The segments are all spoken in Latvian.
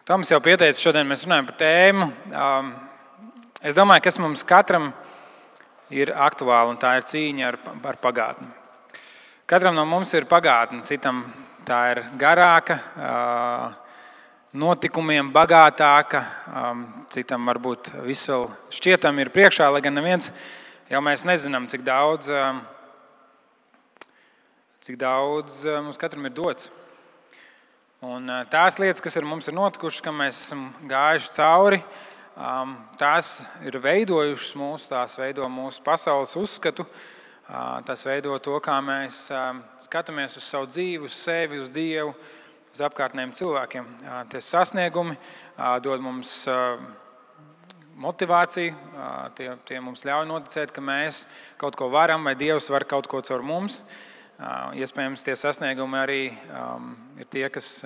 Toms jau pieteica, šodien mēs runājam par tēmu. Es domāju, kas mums katram ir aktuāli, un tā ir cīņa ar pagātni. Katram no mums ir pagātne, citam tā ir garāka, notikumiem bagātāka, citam varbūt viss vēl šķietam ir priekšā, lai gan neviens jau mēs nezinām, cik daudz mums katram ir dots. Un tās lietas, kas ar mums ir notikušas, kam mēs esam gājuši cauri, tās ir veidojušas mūs, tās veido mūsu pasaules uzskatu, tās veido to, kā mēs skatāmies uz savu dzīvi, uz sevi, uz Dievu, uz apkārtnējiem cilvēkiem. Tie sasniegumi dod mums motivāciju, tie mums ļauj noticēt, ka mēs kaut ko varam vai Dievs var kaut ko caur mums. Iespējams, tie sasniegumi arī ir tie, kas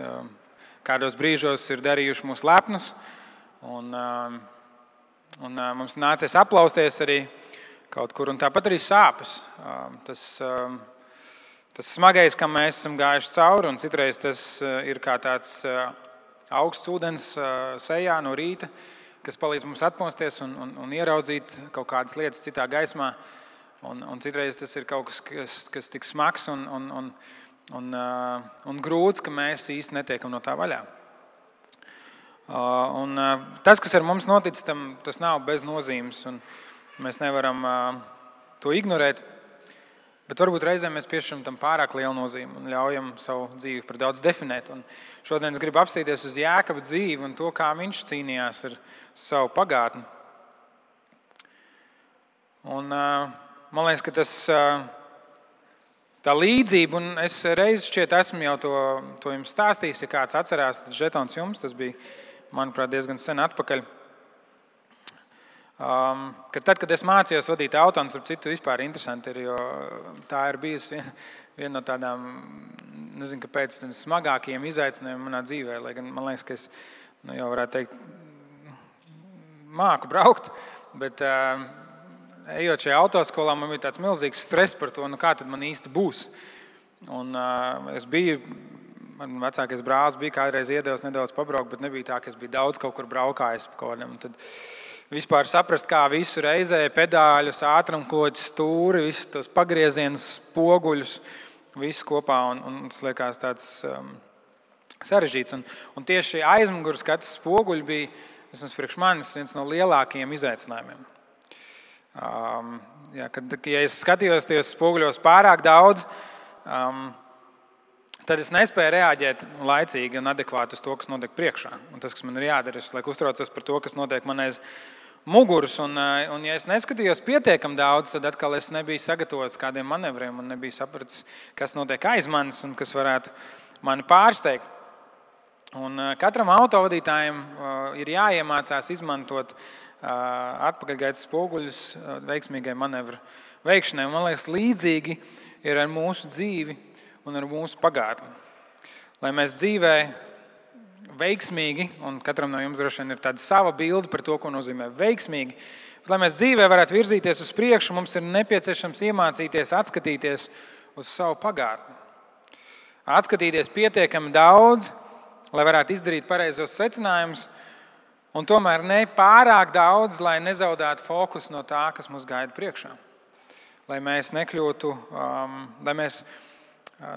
kādos brīžos ir darījuši mūs lepnus. Un mums nācies aplausties arī kaut kur, un tāpat arī sāpes. Tas smagais, kam mēs esam gājuši cauri, un citreiz tas ir kā tāds augsts ūdens sejā no rīta, kas palīdz mums atmosties un ieraudzīt kaut kādas lietas citā gaismā. Un citreiz tas ir kaut kas tik smags un grūts, ka mēs īsti netiekam no tā vaļā. Tas, kas ar mums noticis, tas nav bez nozīmes, un mēs nevaram to ignorēt. Bet varbūt reizēm mēs piešķiram tam pārāk lielu nozīmi un ļaujam savu dzīvi par daudz definēt. Un šodien es gribu apstīties uz Jākaba dzīvi un to, kā viņš cīnījās ar savu pagātni. Un man liekas, ka tā līdzība, un es reiz šķiet esmu jau to jums stāstījis, ja kāds atcerās, tad žetons jums, tas bija, manuprāt, diezgan sen atpakaļ. Ka tad, kad es mācījos vadīt auto, un starp citu vispār interesanti ir, jo tā ir bijusi viena no tādām, nezinu, kāpēc, smagākajiem izaicinājumiem manā dzīvē, lai gan man liekas, ka es jau varētu teikt, māku braukt, bet ejot šajā autoskolā, man bija tāds milzīgs stress par to, kā tad man īsti būs. Un man vecākais brālis bija kādreiz iedevis nedaudz pabraukt, bet nebija tā, ka es biju daudz kaut kur braukājis pa kaut kādiem. Un tad vispār saprast, kā visu reizē, pedāļus, ātrumkloķus, stūri, visus tos pagriezienus, spoguļus, visu kopā. Un tas liekas tāds sarežģīts. Un tieši aizmugures skats spoguļi bija, vismaz priekš manis, viens no lielākajiem izaicinājumiem. Ja es skatījos tajos spoguļos pārāk daudz, tad es nespēju reaģēt laicīgi un adekvāti uz to, kas notiek priekšā. Un tas, kas man ir jādara, es uztraucos par to, kas notiek man aiz muguras. Un ja es neskatījos pietiekam daudz, tad atkal es nebiju sagatavots kādiem manevriem un nebiju sapratis, kas notiek aiz manis un kas varētu mani pārsteigt. Un katram autovadītājam ir jāiemācās izmantot atpakaļgaitas spoguļus veiksmīgai manevru veikšanai. Un man liekas, līdzīgi ir ar mūsu dzīvi un ar mūsu pagātni. Lai mēs dzīvē veiksmīgi, un katram no jums droši vien ir tāda sava bilde par to, ko nozīmē veiksmīgi, bet lai mēs dzīvē varētu virzīties uz priekšu, mums ir nepieciešams iemācīties atskatīties uz savu pagātni. Atskatīties pietiekami daudz, lai varētu izdarīt pareizos secinājumus, un tomēr ne pārāk daudz, lai nezaudētu fokusu no tā, kas mūs gaida priekšā. Lai mēs nekļūtu, lai mēs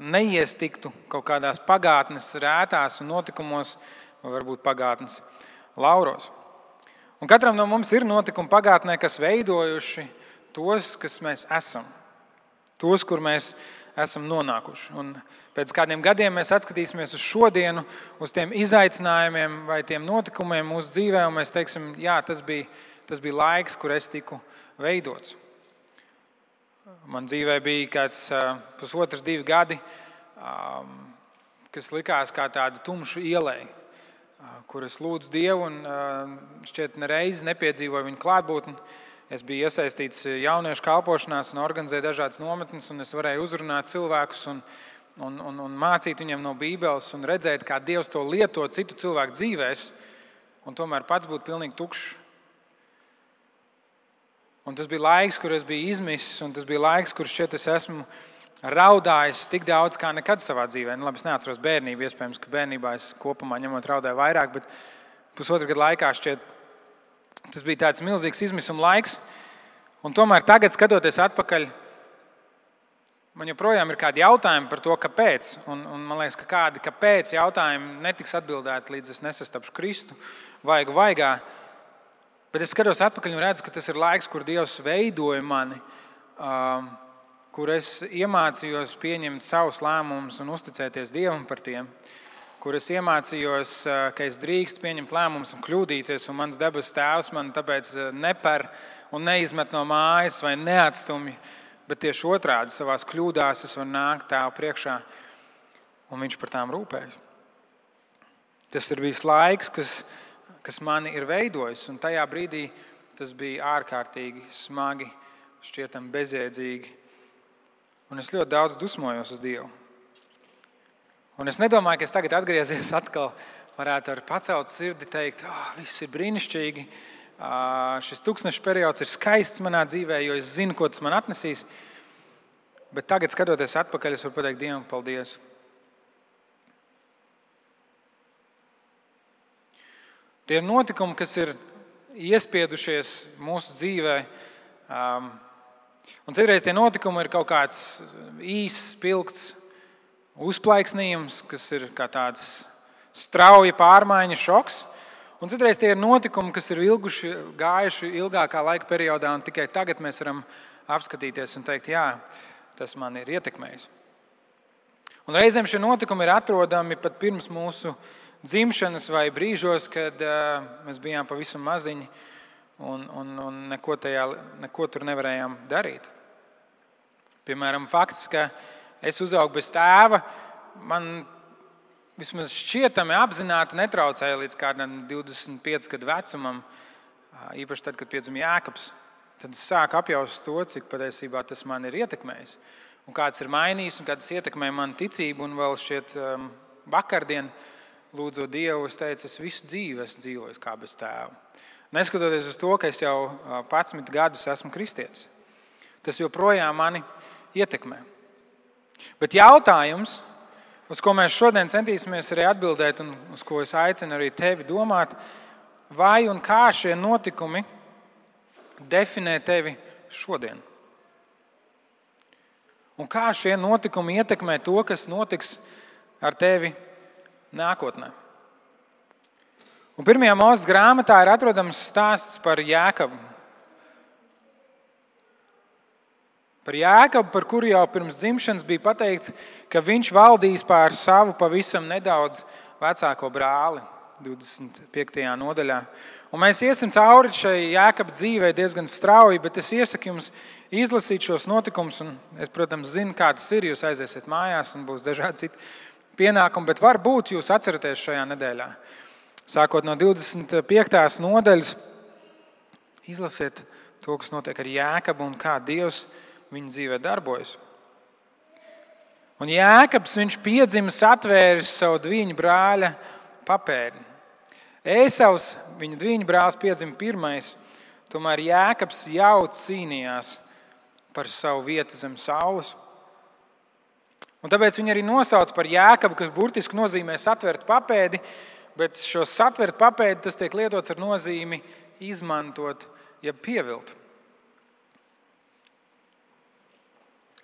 neiestiktu kaut kādās pagātnes rētās un notikumos, vai varbūt pagātnes lauros. Un katram no mums ir notikumi pagātnē, kas veidojuši tos, kas mēs esam. Tos, kur mēs esam nonākuši. Un pēc kādiem gadiem mēs atskatīsimies uz šodienu, uz tiem izaicinājumiem vai tiem notikumiem mūsu dzīvē, un mēs teiksim, jā, tas bija laiks, kur es tiku veidots. Man dzīvē bija kāds 1,5–2 gadi, kas likās kā tāda tumša ielai, kur es lūdzu Dievu un šķiet nereizi nepiedzīvoju viņu klātbūtni. Es biju iesaistīts jauniešu kalpošanās un organizēju dažādas nometnes, un es varēju uzrunāt cilvēkus un mācīt viņiem no Bībeles un redzēt, kā Dievs to lieto citu cilvēku dzīvēs, un tomēr pats būt pilnīgi tukšs. Un tas bija laiks, kur es biju izmisis, un tas bija laiks, kur šķiet es esmu raudājis tik daudz kā nekad savā dzīvē. Labi, es neatceros bērnību, iespējams, ka bērnībā es kopumā ņemot raudāju vairāk, bet pusotru gadu laikā šķiet, tas bija tāds milzīgs izmisuma laiks. Un tomēr tagad, skatoties atpakaļ, man joprojām ir kādi jautājumi par to, kāpēc. Un man liekas, ka kādi kāpēc jautājumi netiks atbildēti, līdz es nesastapšu Kristu vaigā. Bet es skatos atpakaļ un redzu, ka tas ir laiks, kur Dievs veidoja mani, kur es iemācījos pieņemt savus lēmumus un uzticēties Dievam par tiem, kur es iemācījos, ka es drīkstu pieņemt lēmumus un kļūdīties, un mans debesu Tēvs man tāpēc neper un neizmet no mājas vai neatstumj, bet tieši otrādi savās kļūdās es varu nākt Tēvu priekšā, un Viņš par tām rūpējas. Tas ir bijis laiks, kas mani ir veidojis, un tajā brīdī tas bija ārkārtīgi smagi, šķietam bezjēdzīgi. Un es ļoti daudz dusmojos uz Dievu. Un es nedomāju, ka es tagad atgriezies atkal varētu ar pacelt sirdi teikt, viss ir brīnišķīgi, šis tūkstneša periods ir skaists manā dzīvē, jo es zinu, ko tas man atnesīs. Bet tagad, skatoties atpakaļ, es varu pateikt Dievam paldies. Tie ir notikumi, kas ir iespiedušies mūsu dzīvē. Un citreiz tie notikumi ir kaut kāds īss, spilgts uzplaiksnījums, kas ir kā tāds strauja pārmaiņa šoks. Un citreiz tie ir notikumi, kas ir gājuši ilgākā laika periodā, un tikai tagad mēs varam apskatīties un teikt, jā, tas man ir ietekmējis. Un reizēm šie notikumi ir atrodami pat pirms mūsu dzimšanas vai brīžos, kad mēs bijām pavisam maziņi un neko tur nevarējām darīt. Piemēram, fakts, ka es uzaugu bez tēva, man vismaz šķietami apzināti netraucēja līdz kādam 25 gadu vecumam, īpaši tad, kad piedzima Jēkabs. Tad es sāku apjaust to, cik patiesībā tas man ir ietekmējis. Un kāds ir mainījis un kāds ietekmē manu ticību. Un vēl šķiet vakardien, lūdzot Dievu, es teicu, es visu dzīvi esmu dzīvojis kā bez tēva. Neskatoties uz to, ka es jau 11 gadus esmu kristietis. Tas joprojām mani ietekmē. Bet jautājums, uz ko mēs šodien centīsimies arī atbildēt un uz ko es aicinu arī tevi domāt, vai un kā šie notikumi definē tevi šodien? Un kā šie notikumi ietekmē to, kas notiks ar tevi nākotnē? Un 1. Mūzes grāmatā ir atrodams stāsts par Jēkabu. Par Jēkabu, par kuru jau pirms dzimšanas bija pateikts, ka viņš valdīs pār savu pavisam nedaudz vecāko brāli, 25. nodaļā. Un mēs iesim cauri šai Jēkaba dzīvei diezgan strauji, bet es iesaku jums izlasīt šos notikumus. Un es, protams, zinu, kā tas ir. Jūs aiziesiet mājās un būs dažādi citi pienākumi, bet varbūt jūs atceraties šajā nedēļā. Sākot no 25. nodaļas, izlasiet to, kas notiek ar Jēkabu un kā Dievs viņa dzīvē darbojas. Un Jēkabs, viņš piedzimis atvēris savu dviņu brāļa papēdi. Ēsavs, viņa dviņu brālis, piedzima pirmais, tomēr Jēkabs jau cīnījās par savu vietu zem saules. Un tāpēc viņi arī nosauc par Jēkabu, kas burtiski nozīmē satvert papēdi, bet šo satvert papēdi tas tiek lietots ar nozīmi izmantot, ja pievilt.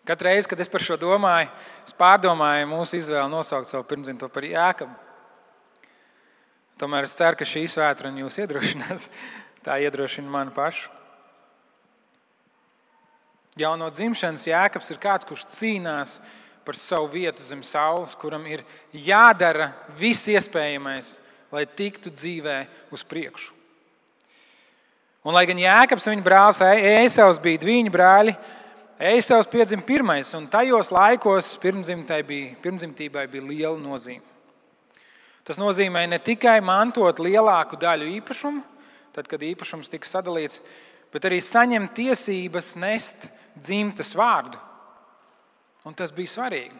Katru reizi, kad es par šo domāju, es pārdomāju mūsu izvēli nosaukt savu pirmdzimto par Jēkabu. Tomēr es ceru, ka šī svētdiena jūs iedrošinās. Tā iedrošina mani pašu. Jau no dzimšanas Jēkabs ir kāds, kurš cīnās par savu vietu zem saules, kuram ir jādara viss iespējamais, lai tiktu dzīvē uz priekšu. Un lai gan Jēkabs un viņa brālis Ēsavs bija dviņu brāļi, Ēsavs piedzima pirmais, un tajos laikos pirmdzimtībai bija liela nozīme. Tas nozīmē ne tikai mantot lielāku daļu īpašumu, tad, kad īpašums tika sadalīts, bet arī saņemt tiesības nest dzimtas vārdu. Un tas bija svarīgi.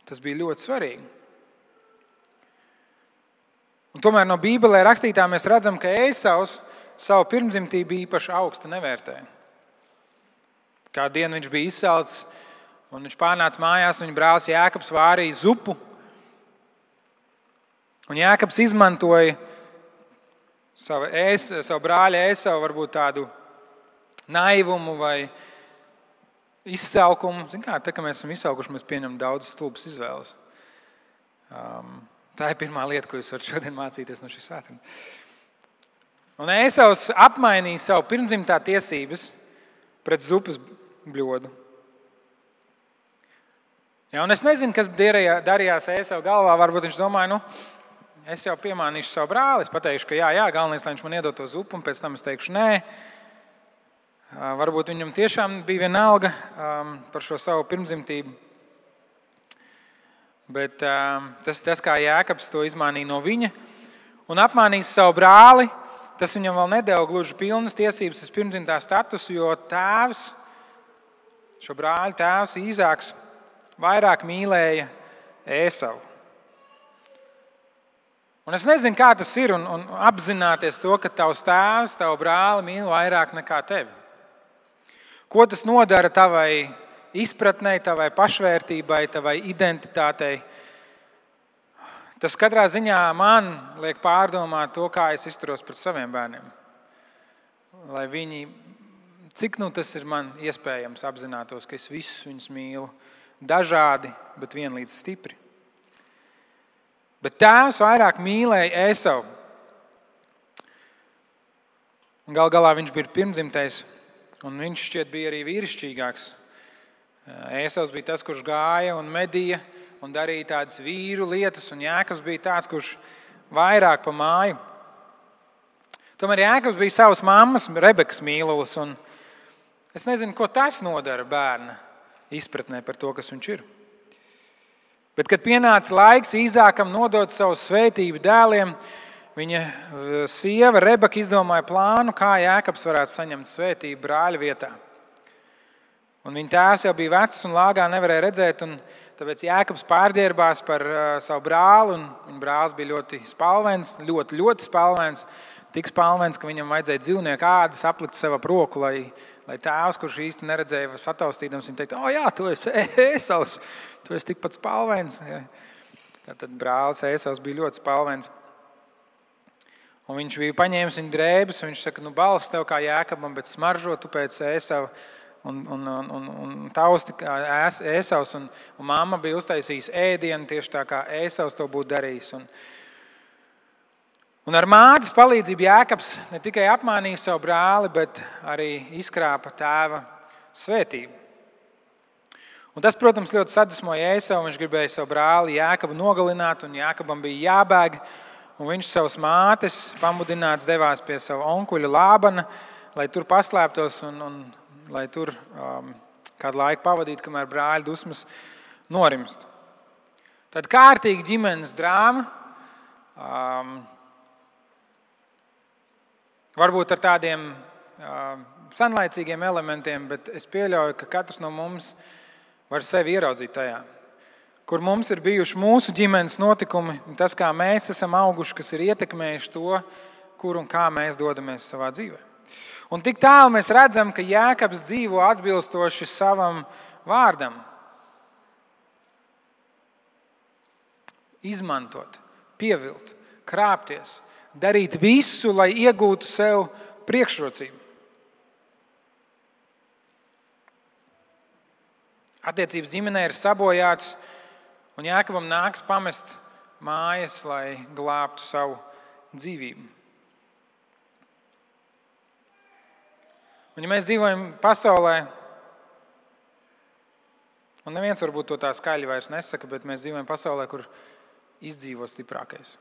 Tas bija ļoti svarīgi. Un tomēr no Bībelē rakstītā mēs redzam, ka Ēsavs savu pirmdzimtību īpaši augstu nevērtēja. Kādu dienu viņš bija izsalcis Un viņš pārnāca mājās, un viņa brālis Jēkabs vārīja zupu. Un Jēkabs izmantoja savu brāļa Ēsavu varbūt tādu naivumu vai izsalkumu. Zin kā, kad mēs esam izsalkuši, mēs pieņemam daudz stulbas izvēles. Tā ir pirmā lieta, ko jūs varat šodien mācīties no šīs svētdienas. Un Ēsavs apmainīja savu pirmdzimtā tiesības pret zupas bļodu. Ja, un es nezinu, kas darījās Ēsava galvā. Varbūt viņš domāja, es jau piemānīšu savu brāli. Es pateikšu, ka jā, galvenais, lai viņš man iedod to zupu, un pēc tam es teikšu nē. Varbūt viņam tiešām bija vienalga par šo savu pirmdzimtību. Bet tas, kā Jēkabs to izmānīja no viņa un apmānīja savu brāli, tas viņam vēl nedeva gluži pilnas tiesības uz pirmdzimtā statusu, jo šo brāļu tēvs Īzāks vairāk mīlēja Ēsavu. Un es nezinu, kā tas ir, un apzināties to, ka tavs tēvs, tavu brāli mīl vairāk nekā tevi. Ko tas nodara tavai izpratnei, tavai pašvērtībai, tavai identitātei? Tas katrā ziņā man liek pārdomāt to, kā es izturos pret saviem bērniem. Lai viņi, cik tas ir man iespējams, apzinātos, ka es visus viņus mīlu dažādi, bet vienlīdz stipri. Bet tēvs vairāk mīlēja Ēsavu. Gal galā viņš bija pirmdzimtais, un viņš šķiet bija arī vīrišķīgāks. Ēsavs bija tas, kurš gāja un medīja un darīja tādas vīru lietas, un Jēkabs bija tāds, kurš vairāk pa māju. Tomēr Jēkabs bija savas mammas Rebekas mīlulis, un es nezinu, ko tas nodara bērna izpratnē par to, kas viņš ir. Bet, kad pienāca laiks Īzākam nodot savu svētību dēliem, viņa sieva Rebeka izdomāja plānu, kā Jēkabs varētu saņemt svētību brāļa vietā. Un viņa tēvs jau bija vecs un lāgā nevarēja redzēt, un tāpēc Jēkabs pārģērbās par savu brāli, un viņa brālis bija ļoti spalvains, ļoti spalvains, tik spalvains, ka viņam vajadzēja dzīvnieku ādas aplikt sev ap roku, lai tēvs, kurš īsti neredzēja sataustīdams, viņa teikt, jā, tu esi Ēsavs, tu esi tikpat spalvains. Ja. Tad brālis Ēsavs bija ļoti spalvains. Un viņš bija paņēmis viņa drēbes, un viņš saka, balss tev kā Jēkabam, bet smaržo tu pēc Ēsava. Un tausti kā Ēsavs, un mamma bija uztaisījusi ēdienu tieši tā, kā Ēsavs to būtu darījis. Un ar mātes palīdzību Jēkabs ne tikai apmānīja savu brāli, bet arī izkrāpa tēva svētību. Un tas, protams, ļoti sadusmoja Ēsavu. Viņš gribēja savu brāli Jēkabu nogalināt, un Jēkabam bija jābēg. Un viņš savas mātes pamudināts devās pie savu onkuļa Lābana, lai tur paslēptos un lai tur kādu laiku pavadītu, kamēr brāļa dusmas norimst. Tad kārtīgi ģimenes drāma, varbūt ar tādiem senlaicīgiem elementiem, bet es pieļauju, ka katrs no mums var sevi ieraudzīt tajā. Kur mums ir bijuši mūsu ģimenes notikumi, tas, kā mēs esam auguši, kas ir ietekmējuši to, kur un kā mēs dodamies savā dzīvē. Un tik tālu mēs redzam, ka Jēkabs dzīvo atbilstoši savam vārdam. Izmantot, pievilt, krāpties, darīt visu, lai iegūtu sev priekšrocību. Attiecības ģimenē ir sabojātas, un Jēkabam nāks pamest mājas, lai glābtu savu dzīvību. Un ja mēs dzīvojam pasaulē, un neviens varbūt to tā skaļi vairs nesaka, bet mēs dzīvojam pasaulē, kur izdzīvo stiprākais.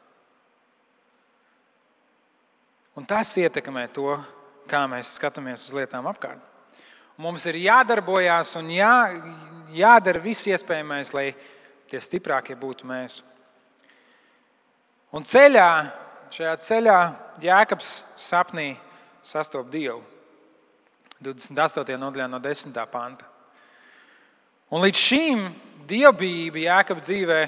Un tas ietekmē to, kā mēs skatāmies uz lietām apkārt. Mums ir jādarbojās un jādara viss iespējamais, lai tie stiprākie būtu mēs. Un šajā ceļā Jēkabs sapnī sastop Dievu. 28. nodaļā no 10. panta. Un līdz šīm dievbijība Jēkaba dzīvē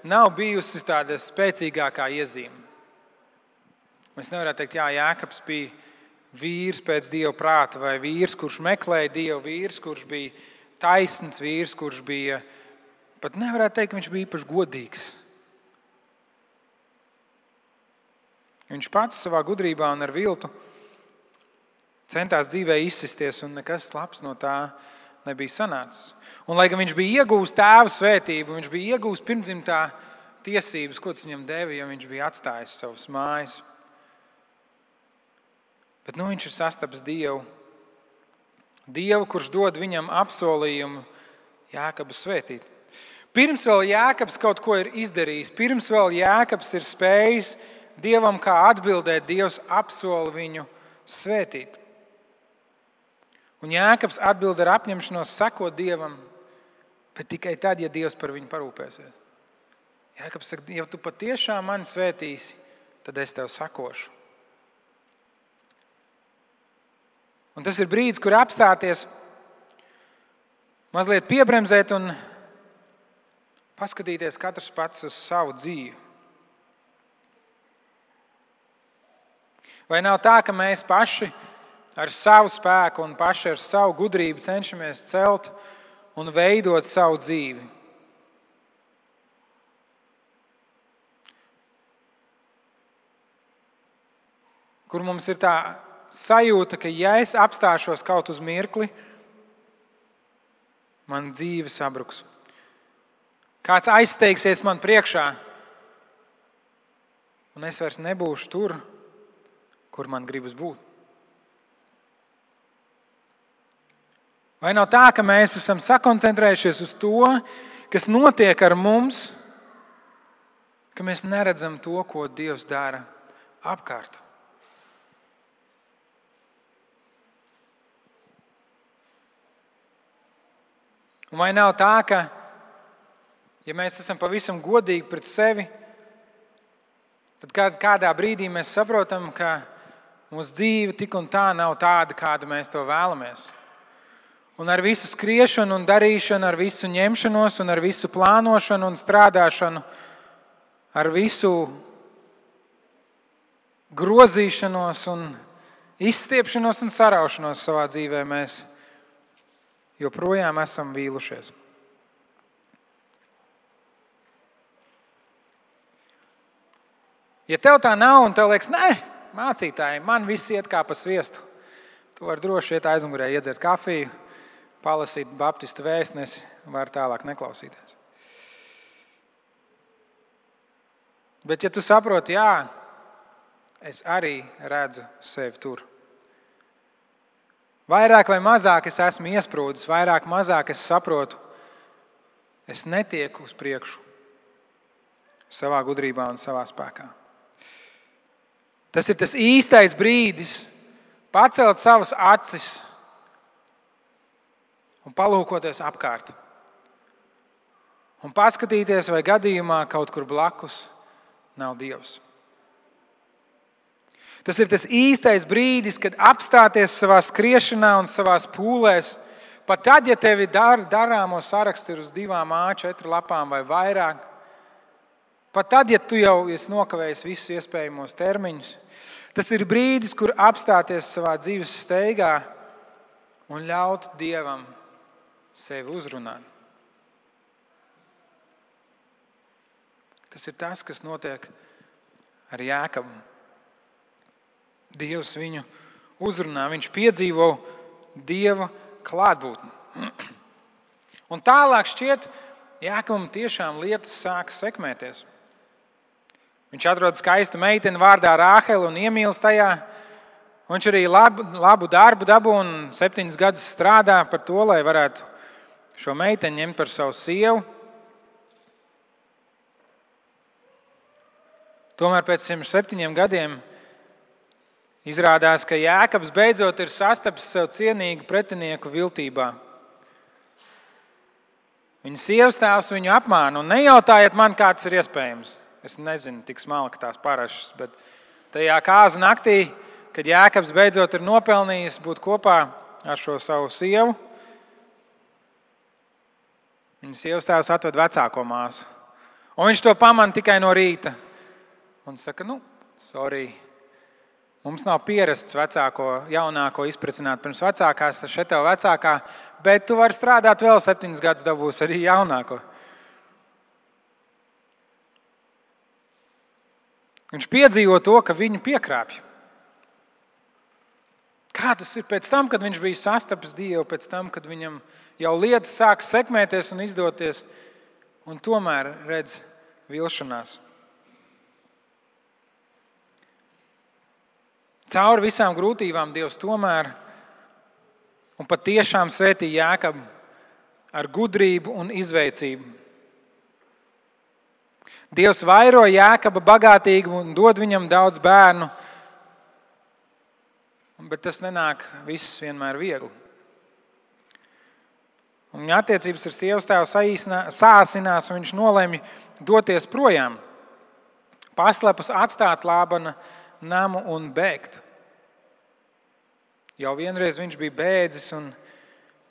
nav bijusi tāda spēcīgākā iezīme. Mēs nevarētu teikt, Jēkabs bija vīrs pēc Dieva prāta, vai vīrs, kurš meklēja Dievu, vīrs, kurš bija taisns vīrs, kurš bija, pat nevarētu teikt, ka viņš bija īpaši godīgs. Viņš pats savā gudrībā un ar viltu centās dzīvē izsisties, un nekas labs no tā nebija sanācis. Un, lai gan viņš bija iegūst tēva svētību, viņš bija iegūst pirmdzimtā tiesības, ko tas viņam deva, ja viņš bija atstājis savas mājas. Bet viņš ir sastapis Dievu. Dievu, kurš dod viņam apsolījumu Jākabu svētīt. Pirms vēl Jākabs kaut ko ir izdarījis, pirms vēl Jākabs ir spējis Dievam kā atbildēt, Dievs apsola viņu svētīt. Un Jākabs atbild ar apņemšanos sekot Dievam, bet tikai tad, ja Dievs par viņu parūpēsies. Jākabs saka, ja tu patiešām mani svētīsi, tad es tev sakošu. Un tas ir brīdis, kur apstāties, mazliet piebremzēt un paskatīties katrs pats uz savu dzīvi. Vai nav tā, ka mēs paši ar savu spēku un paši ar savu gudrību cenšamies celt un veidot savu dzīvi? Kur mums ir tā sajūta, ka ja es apstāšos kaut uz mirkli, man dzīve sabruks. Kāds aizsteigsies man priekšā, un es vairs nebūšu tur, kur man gribas būt. Vai nav tā, ka mēs esam sakoncentrējušies uz to, kas notiek ar mums, ka mēs neredzam to, ko Dievs dara apkārt? Un vai nav tā, ka, ja mēs esam pavisam godīgi pret sevi, tad kādā brīdī mēs saprotam, ka mūsu dzīve tik un tā nav tāda, kādu mēs to vēlamies. Un ar visu skriešanu un darīšanu, ar visu ņemšanos un ar visu plānošanu un strādāšanu, ar visu grozīšanos un izstiepšanos un saraušanos savā dzīvē mēs joprojām esam vīlušies. Ja tev tā nav un tev liekas, nē, mācītāji, man viss iet kā pa sviestu, tu vari droši iet aizmugurē, iedzert kafiju, palasīt baptistu vēstnesi, var tālāk neklausīties. Bet ja tu saproti, jā, es arī redzu sevi tur. Vairāk vai mazāk es esmu iesprūdis, vairāk mazāk es saprotu, es netieku uz priekšu savā gudrībā un savā spēkā. Tas ir tas īstais brīdis pacelt savas acis un palūkoties apkārt. Un paskatīties, vai gadījumā kaut kur blakus nav Dievs. Tas ir tas īstais brīdis, kad apstāties savā skriešanā un savās pūlēs, pat tad, ja tevi darāmo saraksts ir uz 2 A4 lapām vai vairāk, pat tad, ja tu jau esi nokavējis visus iespējamos termiņus, tas ir brīdis, kur apstāties savā dzīves steigā un ļaut Dievam sevi uzrunāt. Tas ir tas, kas notiek ar Jākabu. Dievs viņu uzrunā, viņš piedzīvo Dieva klātbūtni. Un tālāk šķiet, Jākabam tiešām lietas sāk sekmēties. Viņš atrod skaistu meiteni vārdā Rāheli un iemīlas tajā. Viņš arī labu darbu dabū un 7 gadus strādā par to, lai varētu šo meiteni ņemt par savu sievu. Tomēr pēc 107 gadiem izrādās, ka Jākabs beidzot ir sastapis sev cienīgu pretinieku viltībā. Viņa sievastēvs viņu apmāna, un nejautājiet man, kā tas ir iespējams. Es nezinu tik smalki tās parašas, bet tajā kāzu naktī, kad Jākabs beidzot ir nopelnījis būt kopā ar šo savu sievu, viņa sievastēvs atved vecāko māsu. Un viņš to pamana tikai no rīta. Un saka, sorry, Mums nav pierasts jaunāko izprecināt pirms vecākās, tad šeit tev vecākā, bet tu vari strādāt vēl 7 gadus, dabūs arī jaunāko. Viņš piedzīvo to, ka viņu piekrāpj. Kā tas ir pēc tam, kad viņš bija sastapis Dievu, pēc tam, kad viņam jau lietas sāk sekmēties un izdoties, un tomēr redz vilšanās. Cauri visām grūtībām Dievs tomēr un patiešām svētī Jākabu ar gudrību un izveicību. Dievs vairo Jākaba bagātīgi un dod viņam daudz bērnu, bet tas nenāk viss vienmēr viegli. Un viņa attiecības ar sievas tēvu sāsinās, un viņš nolemj doties projām, paslepus atstāt Lābana namu un bēgt. Jau vienreiz viņš bija bēdzis, un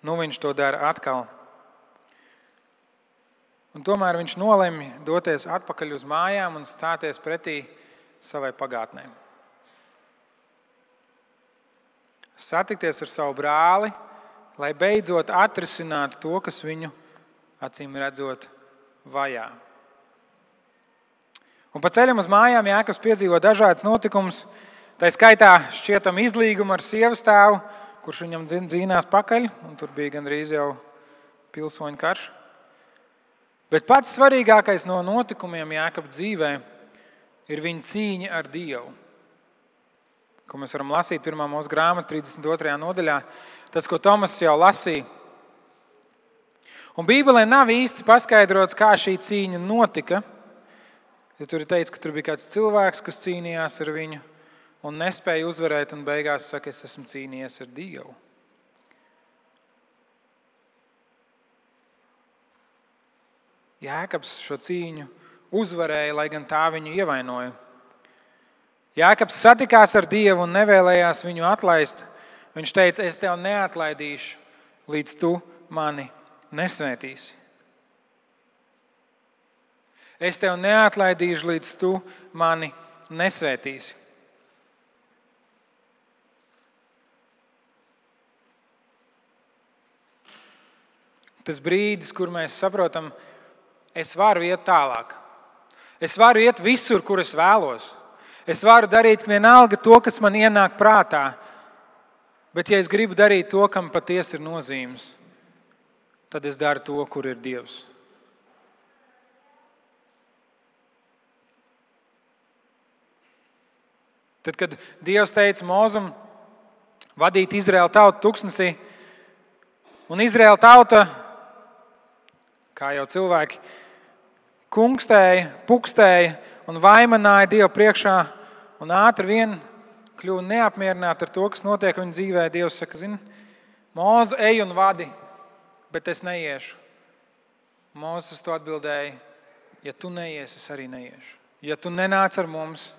viņš to dara atkal. Un tomēr viņš nolemj doties atpakaļ uz mājām un stāties pretī savai pagātnē. Satikties ar savu brāli, lai beidzot atrisinātu to, kas viņu, acīm redzot, vajā. Un pa ceļam uz mājām Jākabs piedzīvo dažādas notikumus, tā skaitā šķietam izlīgumu ar sievas tēvu, kurš viņam dzīnās pakaļ, un tur bija gandrīz jau pilsoņu karš. Bet pats svarīgākais no notikumiem Jākaba dzīvē ir viņa cīņa ar Dievu, ko mēs varam lasīt 1. Mūzes grāmata 32. nodaļā, tas, ko Tomas jau lasīja. Un Bībelē nav īsti paskaidrots, kā šī cīņa notika. Ja tur ir teikts, ka tur bija kāds cilvēks, kas cīnījās ar viņu un nespēja uzvarēt, un beigās saka, es esmu cīnījies ar Dievu. Jākabs šo cīņu uzvarēja, lai gan tā viņu ievainoja. Jākabs satikās ar Dievu un nevēlējās viņu atlaist. Viņš teica, es tev neatlaidīšu, līdz tu mani nesvētīsi. Es tev neatlaidīšu, līdz tu mani nesvētīsi. Tas brīdis, kur mēs saprotam, es varu iet tālāk. Es varu iet visur, kur es vēlos. Es varu darīt vienalga to, kas man ienāk prātā. Bet ja es gribu darīt to, kam patiesi ir nozīmes, tad es daru to, kur ir Dievs. Tad, kad Dievs teica Mozum vadīt Izraēlu tautu tuksnesī, un Izraēla tauta, kā jau cilvēki, kungstēja, pukstēja un vaimanāja Dievu priekšā, un ātri vien kļuva neapmierināti ar to, kas notiek viņa dzīvē. Dievs saka, Mūzu, ej un vadi, bet es neiešu. Mūzes to atbildēja, ja tu neies, es arī neiešu. Ja tu nenāc ar mums,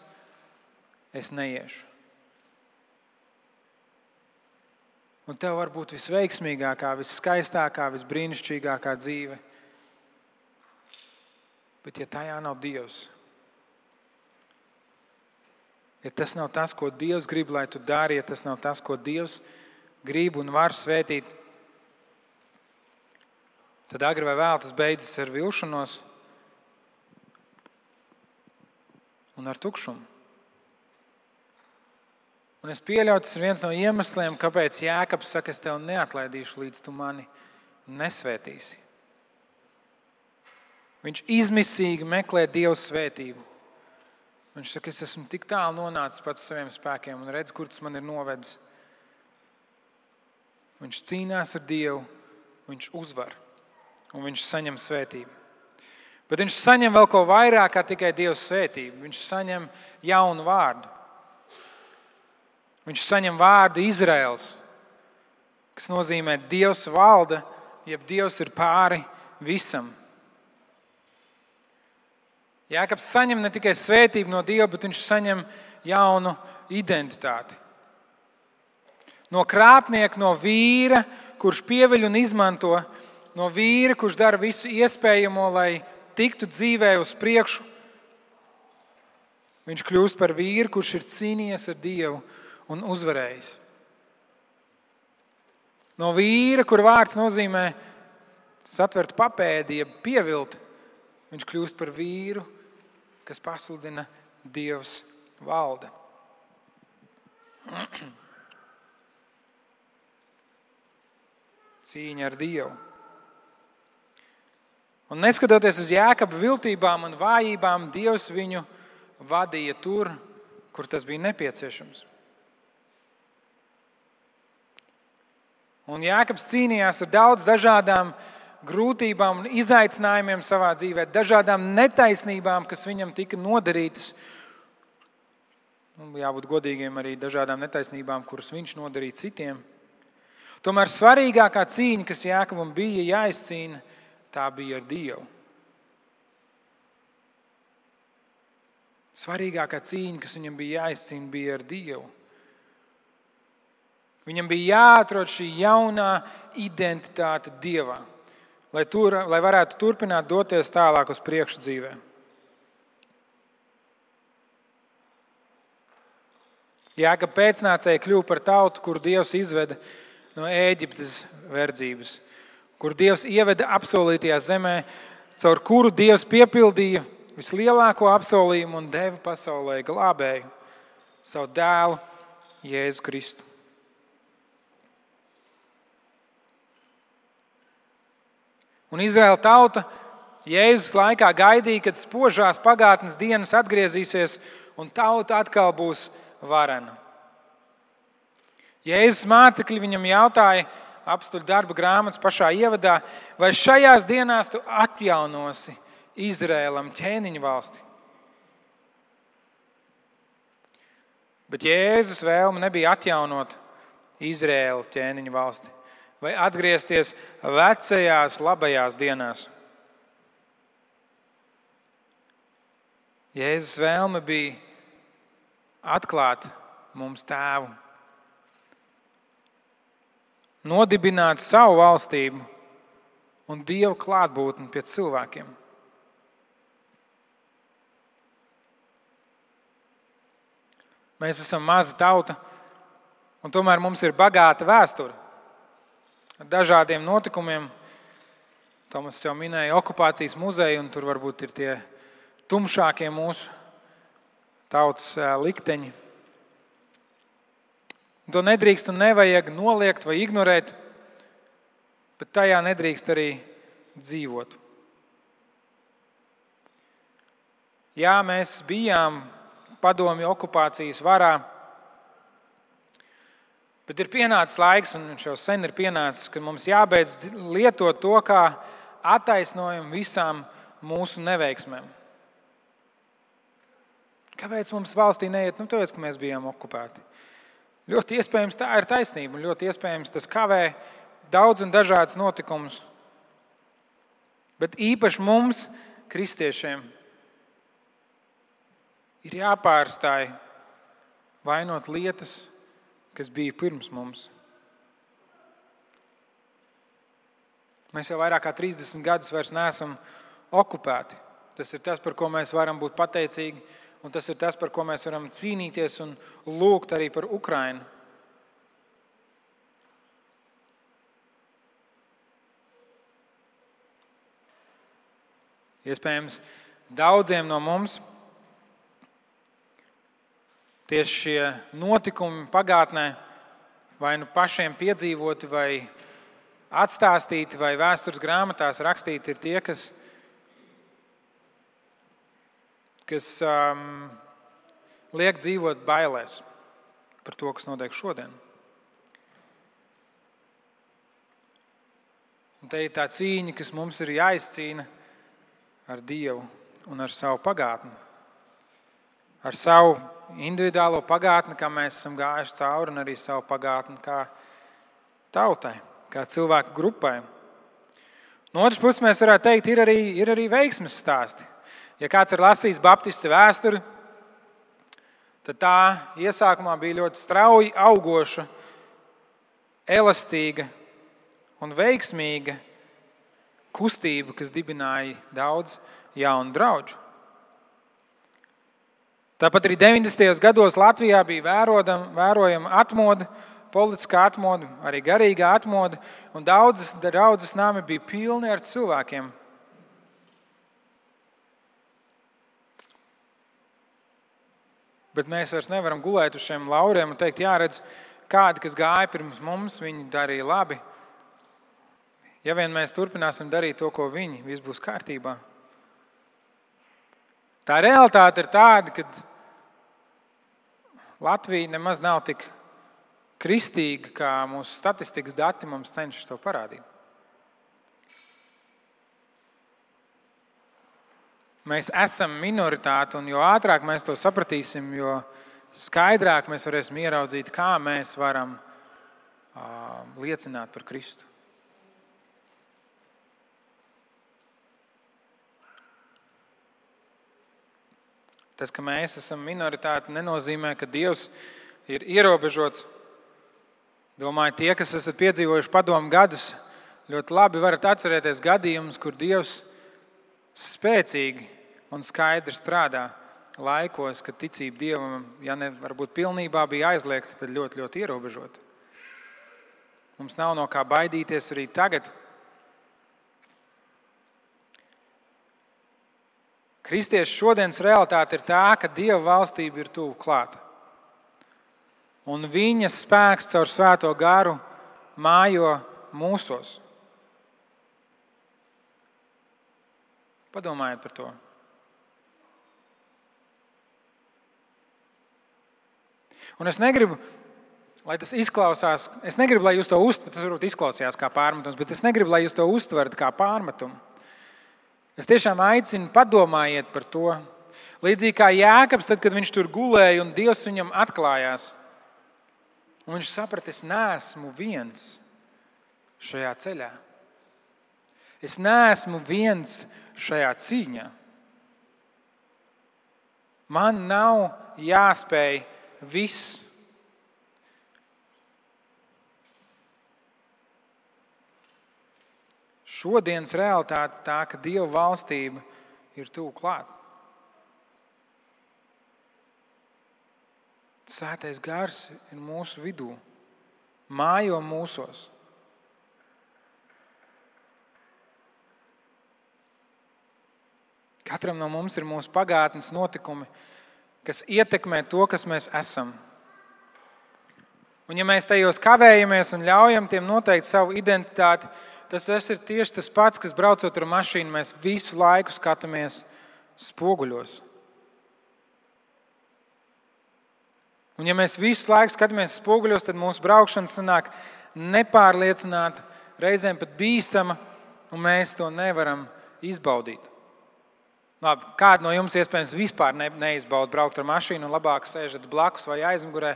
es neiešu. Un tev var būt visveiksmīgākā, visskaistākā, visbrīnišķīgākā dzīve. Bet ja tajā nav Dievs, ja tas nav tas, ko Dievs grib, lai tu dari, ja tas nav tas, ko Dievs grib un var svētīt, tad agri vai vēl tas beidzas ar vilšanos un ar tukšumu. Un es pieļauju, tas ir viens no iemesliem, kāpēc Jākabs saka, es tev neatlaidīšu, līdz tu mani nesvētīsi. Viņš izmisīgi meklē Dieva svētību. Viņš saka, es esmu tik tālu nonācis pats saviem spēkiem un redz, kur tas man ir novedis. Viņš cīnās ar Dievu, viņš uzvar un viņš saņem svētību. Bet viņš saņem vēl ko vairāk kā tikai Dieva svētību. Viņš saņem jaunu vārdu. Viņš saņem vārdu Izraels, kas nozīmē Dievs valda, jeb Dievs ir pāri visam. Jākabs saņem ne tikai svētību no Dieva, bet viņš saņem jaunu identitāti. No krāpnieka, no vīra, kurš pieviļ un izmanto, no vīra, kurš dara visu iespējamo, lai tiktu dzīvē uz priekšu, Viņš kļūst par vīru, kurš ir cīnījies ar Dievu un uzvarējis. No vīra, kur vārds nozīmē satvert papēdi, jeb pievilt, viņš kļūst par vīru, kas pasludina Dievs valda. Cīņa ar Dievu. Un neskatoties uz Jākaba viltībām un vājībām, Dievs viņu vadīja tur, kur tas bija nepieciešams. Un Jākabs cīnījās ar daudz dažādām grūtībām un izaicinājumiem savā dzīvē, dažādām netaisnībām, kas viņam tika nodarītas. Un jābūt godīgiem arī dažādām netaisnībām, kuras viņš nodarīja citiem. Tomēr svarīgākā cīņa, kas Jākabam bija jāizcīna, tā bija ar Dievu. Svarīgākā cīņa, kas viņam bija jāizcīna, bija ar Dievu. Viņam bija jāatrod šī jaunā identitāte Dievā, lai varētu turpināt doties tālāk uz priekšu dzīvē. Jākaba pēcnācēji kļuva par tautu, kuru Dievs izveda no Ēģiptes verdzības, kur Dievs ieveda apsolītajā zemē, caur kuru Dievs piepildīja vislielāko apsolījumu un deva pasaulē glābēju, savu dēlu Jēzu Kristu. Un Izraēla tauta Jēzus laikā gaidīja, kad spožās pagātnes dienas atgriezīsies un tauta atkal būs varena. Jēzus mācekļi viņam jautāja apstuļu darba grāmatas pašā ievadā, vai šajās dienās tu atjaunosi Izraēlam ķēniņu valsti. Bet Jēzus vēlme nebija atjaunot Izraēlu ķēniņu valsti vai atgriezties vecajās labajās dienās. Jēzus vēlme bija atklāt mums Tēvu, nodibināt savu valstību un Dieva klātbūtni pie cilvēkiem. Mēs esam maza tauta, un tomēr mums ir bagāta vēsture ar dažādiem notikumiem. Tomas jau minēja okupācijas muzeju, un tur varbūt ir tie tumšākie mūsu tautas likteņi. To nedrīkst un nevajag noliegt vai ignorēt, bet tajā nedrīkst arī dzīvot. Jā, mēs bijām padomju okupācijas varā, bet ir pienācis laiks, un viņš jau sen ir pienācis, kad mums jābeidz lietot to kā attaisnojumu visām mūsu neveiksmēm. Kāpēc mums valstī neiet? Tāpēc, ka mēs bijām okupēti. Ļoti iespējams tā ir taisnība, un ļoti iespējams tas kavē daudz un dažādas notikumus. Bet īpaši mums, kristiešiem, ir jāpārstāj vainot lietas, kas bija pirms mums. Mēs jau vairāk kā 30 gadus vairs neesam okupēti. Tas ir tas, par ko mēs varam būt pateicīgi, un tas ir tas, par ko mēs varam cīnīties un lūgt arī par Ukrainu. Iespējams, daudziem no mums tieši šie notikumi pagātnē vai nu pašiem piedzīvoti, vai atstāstīti, vai vēstures grāmatās rakstīti, ir tie, kas liek dzīvot bailēs par to, kas notiek šodien. Un te ir tā cīņa, kas mums ir jāizcīna ar Dievu un ar savu pagātni. Ar savu individuālo pagātni, kā mēs esam gājuši cauri, un arī savu pagātni kā tautai, kā cilvēku grupai. No otras puses mēs varētu teikt, ir arī veiksmes stāsti. Ja kāds ir lasījis baptistu vēsturi, tad tā iesākumā bija ļoti strauji augoša, elastīga un veiksmīga kustība, kas dibināja daudz jaunu draugu. Tāpat arī 90. gados Latvijā bija vērojama atmoda, politiskā atmoda, arī garīgā atmoda, un daudzas draudzes nami bija pilni ar cilvēkiem. Bet mēs vairs nevaram gulēt uz šiem lauriem un teikt, jāredz, kādi, kas gāja pirms mums, viņi darīja labi. Ja vien mēs turpināsim darīt to, ko viņi, viss būs kārtībā. Tā realitāte ir tāda, ka Latvija nemaz nav tik kristīga, kā mūsu statistikas dati mums cenšas to parādīt. Mēs esam minoritāte, un jo ātrāk mēs to sapratīsim, jo skaidrāk mēs varēsim ieraudzīt, kā mēs varam liecināt par Kristu. Tas, ka mēs esam minoritāte, nenozīmē, ka Dievs ir ierobežots. Domāju, tie, kas esat piedzīvojuši padomu gadus, ļoti labi varat atcerēties gadījumus, kur Dievs spēcīgi un skaidri strādā laikos, kad ticība Dievam, ja ne varbūt pilnībā bija aizliegta, tad ļoti, ļoti ierobežota. Mums nav no kā baidīties arī tagad. Kristiešu šodienas realitāte ir tā, ka Dieva valstība ir tuvu klāta. Un viņa spēks caur Svēto garu mājo mūsos. Padomājiet par to. Un es negribu, lai tas izklausās, lai jūs to uztverat, tas varbūt izklausījās kā pārmetums, bet es negribu, lai jūs to uztverat kā pārmetumu. Es tiešām aicinu, padomājiet par to. Līdzīgi kā Jēkabs, tad, kad viņš tur gulēja un Dievs viņam atklājās. Un viņš saprata, es neesmu viens šajā ceļā. Es neesmu viens šajā cīņā. Man nav jāspēj viss. Šodienas realitāte tā, ka Dieva valstība ir tuvu klāt. Svētais gars ir mūsu vidū, mājo mūsos. Katram no mums ir mūsu pagātnes notikumi, kas ietekmē to, kas mēs esam. Un ja mēs tajos kavējamies un ļaujam tiem noteikt savu identitāti, tas ir tieši tas pats, kas braucot ar mašīnu, mēs visu laiku skatāmies spoguļos. Un ja mēs visu laiku skatāmies spoguļos, tad mūsu braukšana sanāk nepārliecināta, reizēm pat bīstama, un mēs to nevaram izbaudīt. Labi, kādi no jums iespējams vispār neizbauda braukt ar mašīnu un labāk sēžat blakus vai aizmugurē,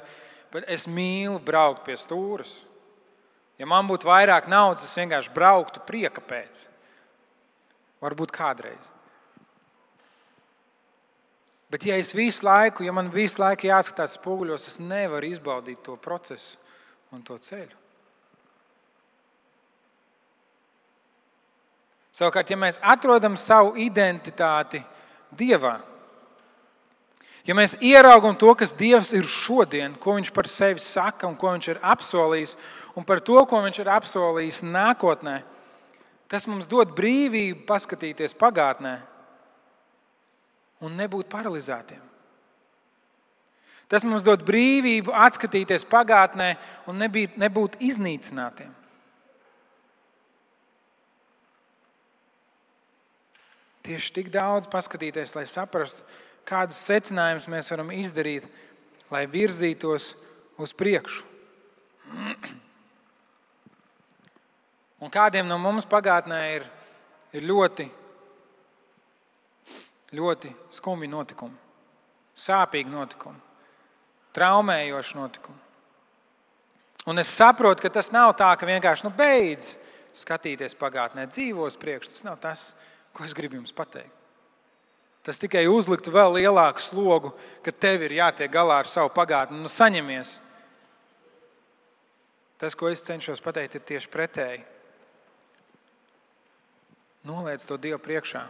bet es mīlu braukt pie stūras. Ja man būtu vairāk naudas, es vienkārši brauktu prieka pēc. Varbūt kādreiz. Bet ja man visu laiku jāskatās spoguļos, es nevaru izbaudīt to procesu un to ceļu. Savukārt, ja mēs atrodam savu identitāti Dievā, ja mēs ieraugam to, kas Dievs ir šodien, ko Viņš par sevi saka un ko Viņš ir apsolījis, un par to, ko Viņš ir apsolījis nākotnē, tas mums dod brīvību paskatīties pagātnē un nebūt paralizētiem. Tas mums dod brīvību atskatīties pagātnē un nebūt iznīcinātiem. Tieši tik daudz paskatīties, lai saprastu, kādus secinājumus mēs varam izdarīt, lai virzītos uz priekšu. Un kādiem no mums pagātnē ir ļoti, ļoti skumji notikumi, sāpīgi notikumi, traumējoši notikumi. Un es saprotu, ka tas nav tā, ka vienkārši beidz skatīties pagātnē, dzīvos priekš. Tas nav tas, ko es gribu jums pateikt. Tas tikai uzliktu vēl lielāku slogu, ka tev ir jātiek galā ar savu pagātni. Saņemies. Tas, ko es cenšos pateikt, ir tieši pretēji. Noliec to Dievu priekšā.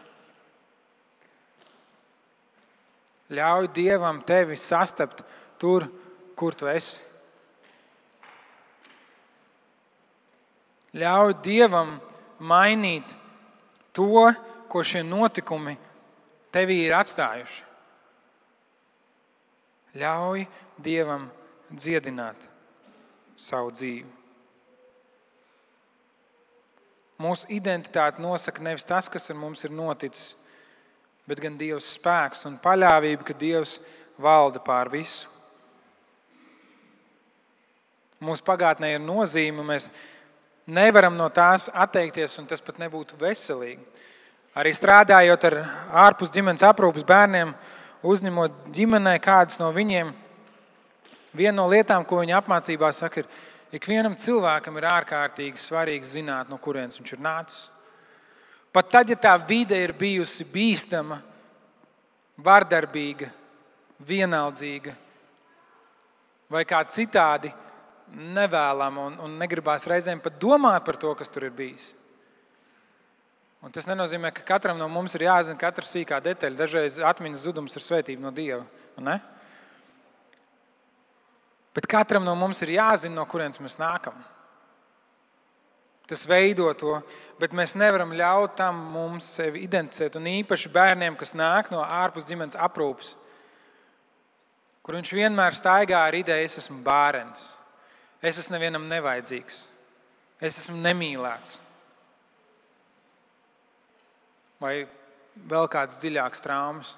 Ļauj Dievam tevi sastapt tur, kur tu esi. Ļauj Dievam mainīt to, ko šie notikumi tevī ir atstājuši. Ļauj Dievam dziedināt savu dzīvi. Mūsu identitāti nosaka nevis tas, kas ar mums ir noticis, bet gan Dieva spēks un paļāvība, ka Dievs valda pār visu. Mūsu pagātnē ir nozīme, mēs nevaram no tās atteikties, un tas pat nebūtu veselīgi. Arī strādājot ar ārpus ģimenes aprūpes bērniem, uzņemot ģimenei kādus no viņiem, viena no lietām, ko viņi apmācībā saka, ir, ikvienam cilvēkam ir ārkārtīgi svarīgi zināt, no kurienes viņš ir nācis. Pat tad, ja tā vide ir bijusi bīstama, vardarbīga, vienaldzīga vai kā citādi nevēlama un negribās reizēm pat domāt par to, kas tur ir bijis. Un tas nenozīmē, ka katram no mums ir jāzina katra sīkā detaļa. Dažreiz atmiņas zudums ir svētība no Dieva. Ne? Bet katram no mums ir jāzina, no kurienes mēs nākam. Tas veido to, bet mēs nevaram ļaut tam mums sevi identificēt. Un īpaši bērniem, kas nāk no ārpus ģimenes aprūpes, kur viņš vienmēr staigā ar ideju, es esmu bērns, es esmu nevienam nevajadzīgs, es esmu nemīlēts. Vai vēl kāds dziļāks traumas.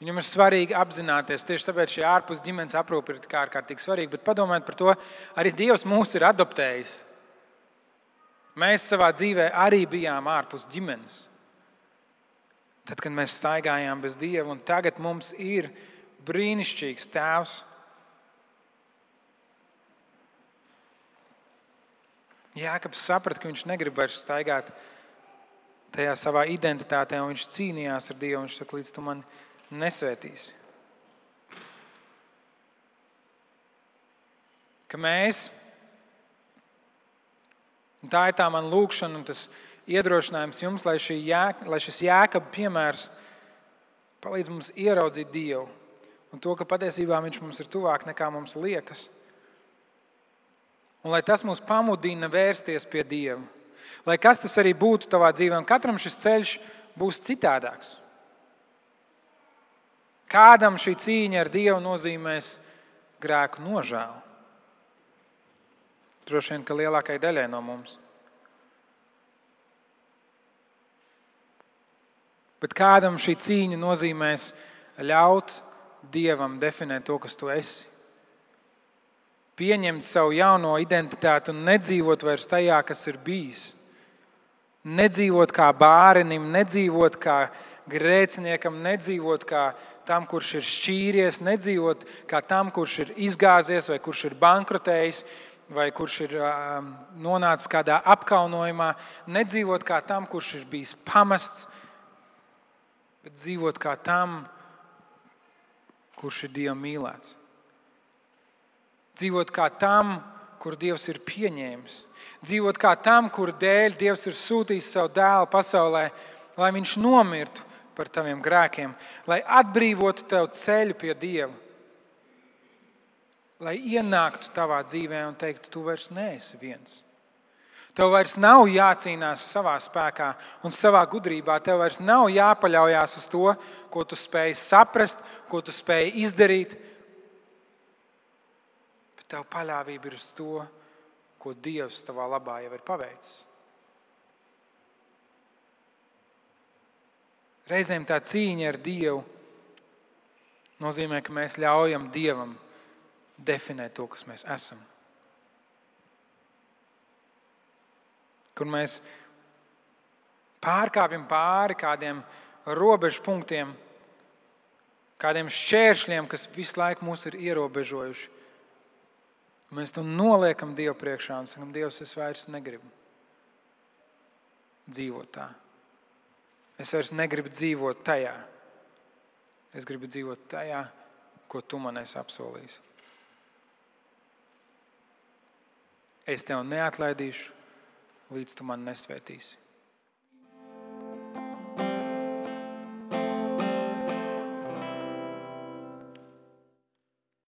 Viņam ir svarīgi apzināties, tieši tāpēc šī ārpus ģimenes aprūpe ir ārkārtīgi svarīga, bet padomājiet par to, arī Dievs mūs ir adoptējis. Mēs savā dzīvē arī bijām ārpus ģimenes. Tad, kad mēs staigājām bez Dieva, un tagad mums ir brīnišķīgs tēvs. Jākabs saprata, ka viņš negrib vairs staigāt tajā savā identitātē, un viņš cīnījās ar Dievu, un viņš saka, līdz tu mani nesvētīsi. Ka mēs, un tā ir tā man lūkšana un tas iedrošinājums jums, lai šis Jēkaba piemērs palīdz mums ieraudzīt Dievu un to, ka patiesībā viņš mums ir tuvāk nekā mums liekas. Un lai tas mūs pamudina vērsties pie Dieva. Lai kas tas arī būtu tavā dzīvē, un katram šis ceļš būs citādāks. Kādam šī cīņa ar Dievu nozīmēs grēku nožēlu. Droši vien, ka lielākai daļai no mums. Bet kādam šī cīņa nozīmēs ļaut Dievam definēt to, kas tu esi. Pieņemt savu jauno identitāti un nedzīvot vairs tajā, kas ir bijis. Nedzīvot kā bārenim, nedzīvot kā grēciniekam, nedzīvot kā tam, kurš ir šķīries, nedzīvot kā tam, kurš ir izgāzies vai kurš ir bankrotējis vai kurš ir nonācis kādā apkaunojumā, nedzīvot kā tam, kurš ir bijis pamests, bet dzīvot kā tam, kurš ir Dieva mīlēts. Dzīvot kā tam, kur Dievs ir pieņēmis. Dzīvot kā tam, kur dēļ Dievs ir sūtījis savu dēlu pasaulē, lai viņš nomirtu par taviem grēkiem, lai atbrīvotu tev ceļu pie Dieva, lai ienāktu tavā dzīvē un teiktu, tu vairs neesi viens. Tev vairs nav jācīnās savā spēkā un savā gudrībā. Tev vairs nav jāpaļaujās uz to, ko tu spēj saprast, ko tu spēj izdarīt. Bet tev paļāvība ir uz to, ko Dievs tavā labā jau ir paveicis. Reizēm tā cīņa ar Dievu nozīmē, ka mēs ļaujam Dievam definēt to, kas mēs esam. Kur mēs pārkāpjam pāri kādiem robežu punktiem, kādiem šķēršļiem, kas visu laiku mūs ir ierobežojuši. Mēs to noliekam Dievu priekšā un sakam, Dievs, es vairs negribu dzīvot tā. Es vairs negribu dzīvot tajā. Es gribu dzīvot tajā, ko tu man esi apsolījis. Es tev neatlaidīšu, līdz tu man nesvētīsi.